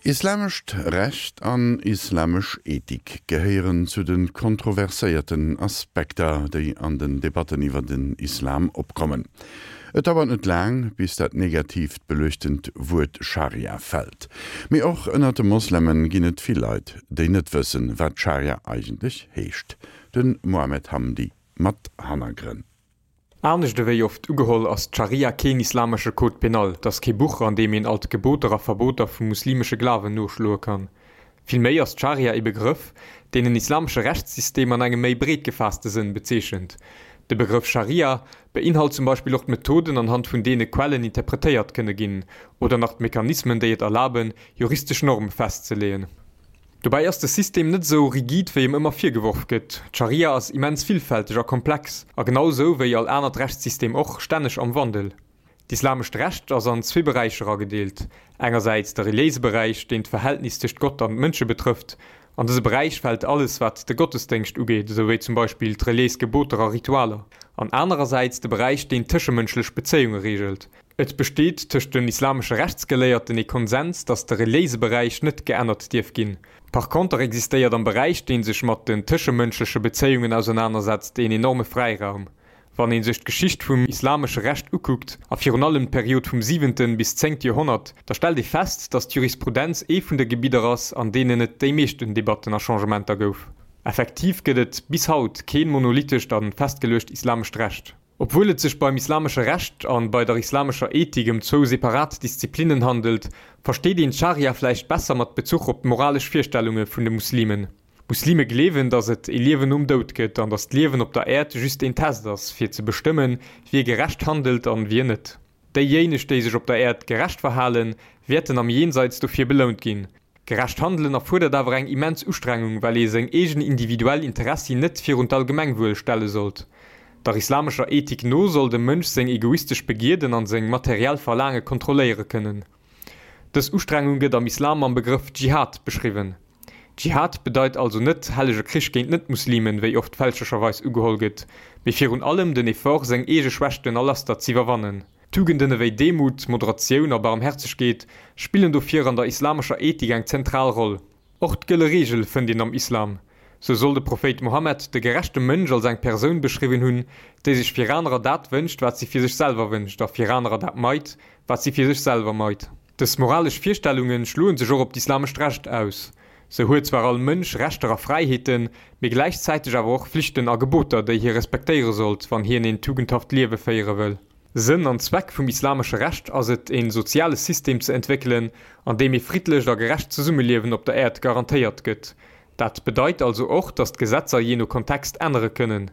Islamescht Recht an islamesch Ethik gehéieren zu de kontroverséierten Aspekter, déi an den Debatten iwwer den Islam opkommen. Et dauert net laang, bis dat negatiivt beluechtent Wuert Scharia fält. Mee och ënner de Mosleme ginn et vill Leit, déi net wëssen, wat Scharia eigentlech heescht. De Mohamed Hamdi mat Hannergrënn. Anescht ewéi oft ugeholl, ass d'Scharia keen islamesche Code pénal, et ass kee Buch, an deem een all d'Geboter a Verboter vum muslimesche Glawen noschloe kann. Villméi ass d'Scharia ee Begrëff, deen en islamesche Rechtssystem an engem méi breet gefaasste Sënn bezeechent. De Begrëff Scharia beinhalt zum Beispill och d'Methoden, anhand vun deene Quellen interpretéiert kënne ginn, oder nach d'Mechanismen, déi et erlaben, juristesch Norme festzeleeën. Dobäi ass de System net esou rigid wéi em ëmmer virgeworf gëtt. D'Scharia ass immens villfälteg a komplex, a genau esou wéi all anert Rechtssystem och, stänneg am Wandel. D'islamescht Recht ass an zwee Beräicher agedeelt, engersäits de reliéise Beräich, deen d'Verhältnis tëscht Gott an d'Mënsche betrëfft. An dëse Beräich fält alles wat de Gottesdéngscht ugeet, esou wéi zum Beispill d'reliéis Geboter a Ritualer, an anerersäits de Beräich deen tëschemënschlech Bezéiunge reegelt. Et besteet tëscht den islamesche Rechtsgeléierten ee Konsens, datt de reliéise Beräich net geännert dierf ginn. Par conter existéiert am Beräich, dee sech mat den tëschemënschleche Bezéiungen ausernanersetzt, een enorme Fräiraum. Wann ee sech d'Geschicht vum islamesche Recht ukuckt, a virun allem d'Period vum siwenten bis zéngte Joerhonnert, da stellt ee fest, datt d'Jurisprudenz ee vun de Gebidder ass, an deenen et déi meeschten Debatten a Changementer gouf. Effektiv gëtt et bis haut keen monolithescht a festgeluecht islamescht Recht. Obwuel et sech beim islamesche Recht an bei der islamescher Ethik ëm zwou separat Disziplinnen handelt, versteet een d'Scharia vläicht besser mat Bezuch op d'moralesch Virstellunge vun de Muslimen. Muslime gleewen, datt et ee Liewen nom Doud gëtt an datt d'Liewen op der Äerd just een Test ass, fir ze bestëmmen, wie gerecht handelt an wien net. Déijéineg, déi sech op der Äerd gerecht verhalen, wäerten am Jenseits dofir belount ginn. Gerecht handelen erfuerdert awer eng immens Ustrengung, well ee seng eegen individuell Interessi net virun d'Allgemengwuel stelle sollt. Der islamescher Ethik no soll de Mënsch seng egoistesch Begierden an seng materiell Verlaange kontrolléiere kënnen. Dës Ustrengung gëtt am Islam mam Begrëff Dschihad beschriwwen. Dschihad bedeit also net hellege Krich géint Net-Muslimen, wéi oft fälschlecherweis ugeholl gëtt, mee virun allem den Effort, seng eege Schwächten a Laster z'iwwerwannen. Tugenden ewéi Demut, Moderatioun a Barmherzegkeet spillen dofir an der islamescher Ethik eng zentral Roll. Och d'gëlle Reegel fënnt een am Islam. Sou soll de Prophéit Mohammed de gerechte Mënsch als eng Persoun beschriwwen hunn, déi sech fir anerer dat wënscht, wat si fir sech selwer wënscht a fir anerer dat meit, wat si fir sech selwer meit. Dës moralesch Virstellunge schloe sech och op d'islamescht Recht aus. Sou huet zwar all Mënsch Rechter a Fräiheeten, mee gläichzäiteg awer och Flichten a Geboter, déi hie respektéiere sollt, wann hien een tugendhaft Liewe féiere wëll. Sënn an Zweck vum islamesche Recht ass et, een soziale System ze entwéckelen, an deem ee friddlecht a gerecht Zesummeliewen op der Äerd garantéiert gëtt. Dat bedeit also och, datt d'Gesetzer jee no Kontext ännere kënnen.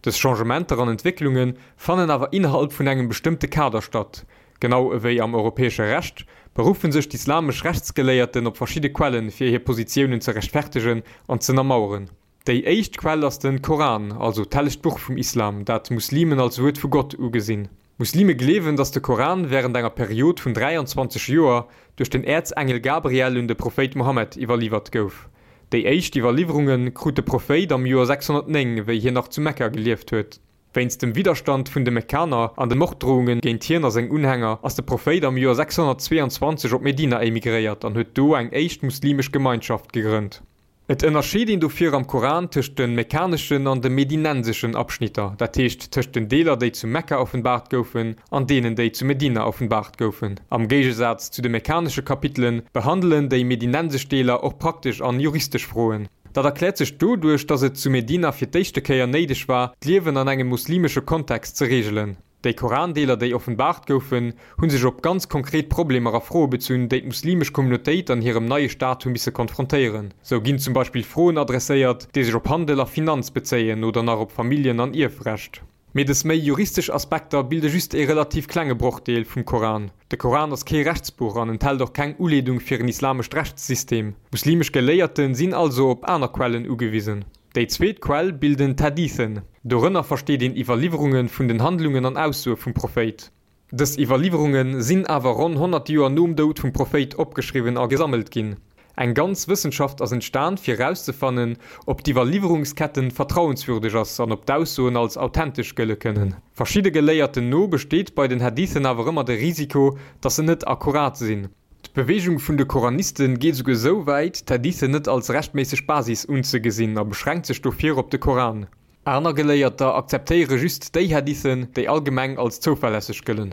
Dës Changementer an Entwécklunge fannen awer innerhalb vun engem bestëmmte Kader statt. Genau ewéi am europäesche Recht beruffe sech d'islamesch Rechtsgeléierten op verschidde Quellen, fir hir Positiounen ze rechtfertegen an z'ënnermaueren. Déi éischt Quell ass den Koran, also d'hellegt Buch vum Islam, dat Muslimen als Wuert vu Gott ugesinn. Muslime gleewen, datt de Koran wärend enger Period vun 23 Joer duerch den Äerzengel Gabriel un de Prophéit Mohammed iwwerliwwert gouf. Déi éischt Iwwerliwwerunge krut de Prophéit am Joer 609, wéi hien nach zu Mekka gelieft huet. Wéinst dem Widderstand vun de Mekkaner an de Morddrohunge géint hien a seng Unhänger ass de Prophéit am Joer 622 op Medina emigréiert an huet do eng éischt muslimesch Gemeinschaft gegrënnt. Et ënnerscheet een dofir am Koran tëscht de mekkaneschen an de medinenseschen Abschnitter, dat heescht tëscht den Deeler déi zu Mekka offenbaart goufen an deenen déi zu Medina offenbaart goufen. Am Géigesaz zu de mekkanesche Kapitele behandelen déi medinensesch Deeler och praktesch an juristesch Froen. Dat erkläert sech doduerch, datt et zu Medina fir d'éischte Kéier néideg war, d'Liewen an engem muslimesche Kontext ze reegelen. Déi Korandeeler, déi offenbaart goufen, hu sech op ganz konkret Problemer a Froe bezunn, déi d'muslimesch Communautéit an hirem neie Staat hu misse konfrontéieren. Sou ginn zum Beispill Froen adresséiert, déi sech op Handel a Finanz bezéien oder nach op Familljen an Ierfrecht. Mee dës méi juristesch Aspekter bilde just ee relativ klenge Brochdeel vum Koran. De Koran ass kee Rechtsbuch an enthält och keng Uleedung fir en islamescht Rechtssystem. Muslimesch Geléierte sinn also op aner Quellen ugewisen. Déi zweet Quell bilden d'Hadithen. Dorënner versteet een Iwwerliwwerunge vun den Handlungen an Aussoe vum Prophéit. Dës Iwwerliwwerunge sinn awer ronn 100 Joer nom Doud vum Prophéit opgeschriwwen a gesammelt ginn. Eng ganz Wëssenschaft ass entstan fir erauszefannen, ob d'Iwwerliwwerungsketten vertrauenswürdeg ass an ob d'Aussoen als authentesch gëlle kënnen. Verschidde Geléierten no besteet bei den Hadithen awer ëmmer de Risiko, datt se net akkurat sinn. D'Beweegung vun de Koraniste geet esouguer esou wäit, d'Hadithen net als rechtméisseg Basis unzegesinn a beschränkt sech dofir op de Koran. Aner Geléierter akzeptéiere just déi Hadithen, déi allgemeng als zouverlässeg gëllen.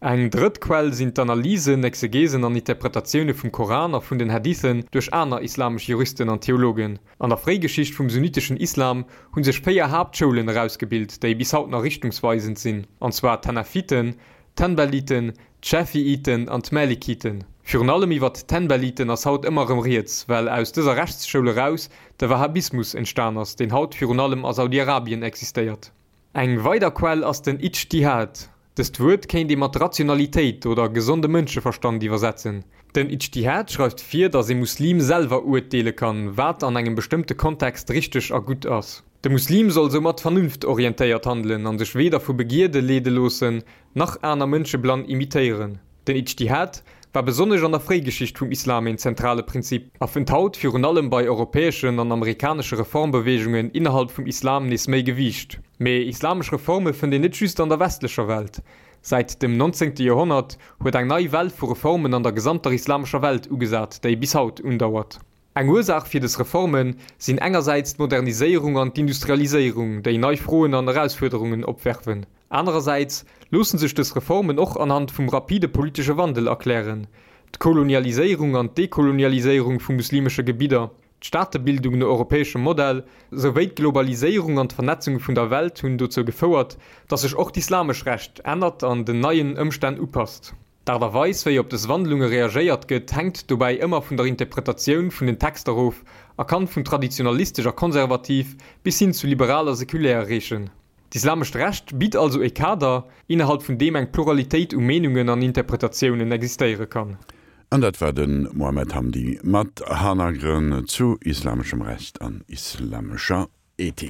Eng drëtt Quell sinn d'Analysen, Exegesen an Interpretatioune vum Koran a vun den Hadithen duerch aner islamesch Juristen an Theologen. An der Fréigeschicht vum sunniteschen Islam hu sech 4 Haaptschoulen erausgebilt, déi bis haut nach richtungsweisend sinn, an zwar d'Hanafiten, d'Hanbaliten, d'Schafiiten an d'Malikiten. Virun allem iwwert d'Hanbaliten ass haut ëmmer erëm rieds, well aus dëser Rechtsschoul eraus de Wahhabismus entstan ass, deen haut virun allem a Saudi-Arabien existéiert. Eng weider Quell ass den Ijtihad. Dëst Wuert kéint ee mat Rationalitéit oder gesonde Mënscheverstand iwwersetzen. Den Ijtihad schreift vir, datt ee Muslim selwer uerteele kann, wat an engem bestëmmte Kontext richteg a gutt ass. De Muslim soll soumat vernunftorientéiert handelen an sech weder vu Begierde leede loossen, nach aner Mënsche blann imitéieren. Den Ijtihad war besonnesch an der Fréigeschicht vum Islam een zentrale Prinzip a fënnt haut virun allem bei europäeschen an amerikanesche Reformbeweegungen innerhalb vum Islam nees méi Gewiicht. Mee islamesch Reforme fënnt een net just an der westlecher Welt. Säit dem 19. Joerhonnert huet eng nei Well vu Reformen an der gesamter islamescher Welt ugesat, déi bis haut undauert. Eng Ursaach fir des Reforme sinn engersäits d'Moderniséierung an d'Industrialiséierung, déi nei Froen an Erausfuerderungen opwerfen. Anerersäits loosse sech des Reformen och anhand vum rapide politesche Wandel erklären, d'Kolonialiséierung an d'Dekolonialiséierung vu muslimesche Gebidder, d'Staatebildung no europäeschem Modell, souwéi d'Globaliséierung an d'Vernetzung vun der Welt hunn dozou gefouert, datt sech och d'islamesch Recht ännert an den neien Ëmstänn upasst. D'Aart a Weis, wéi op dës Wandlunge reagéiert gëtt, hänkt dobäi ëmmer vun der Interpretatioun vun den Texter of a kann vun traditionalistesch a konservativ bis hin zu liberal a sekulär reechen. D'islamescht Recht bitt also e Kader, innerhalb vun deem eng Pluralitéit u Meenungen an Interpretatiounen existéiere kann. An dat war de Mohamed Hamdi mat Hannergrënn zu islameschem Recht an islamescher Ethik.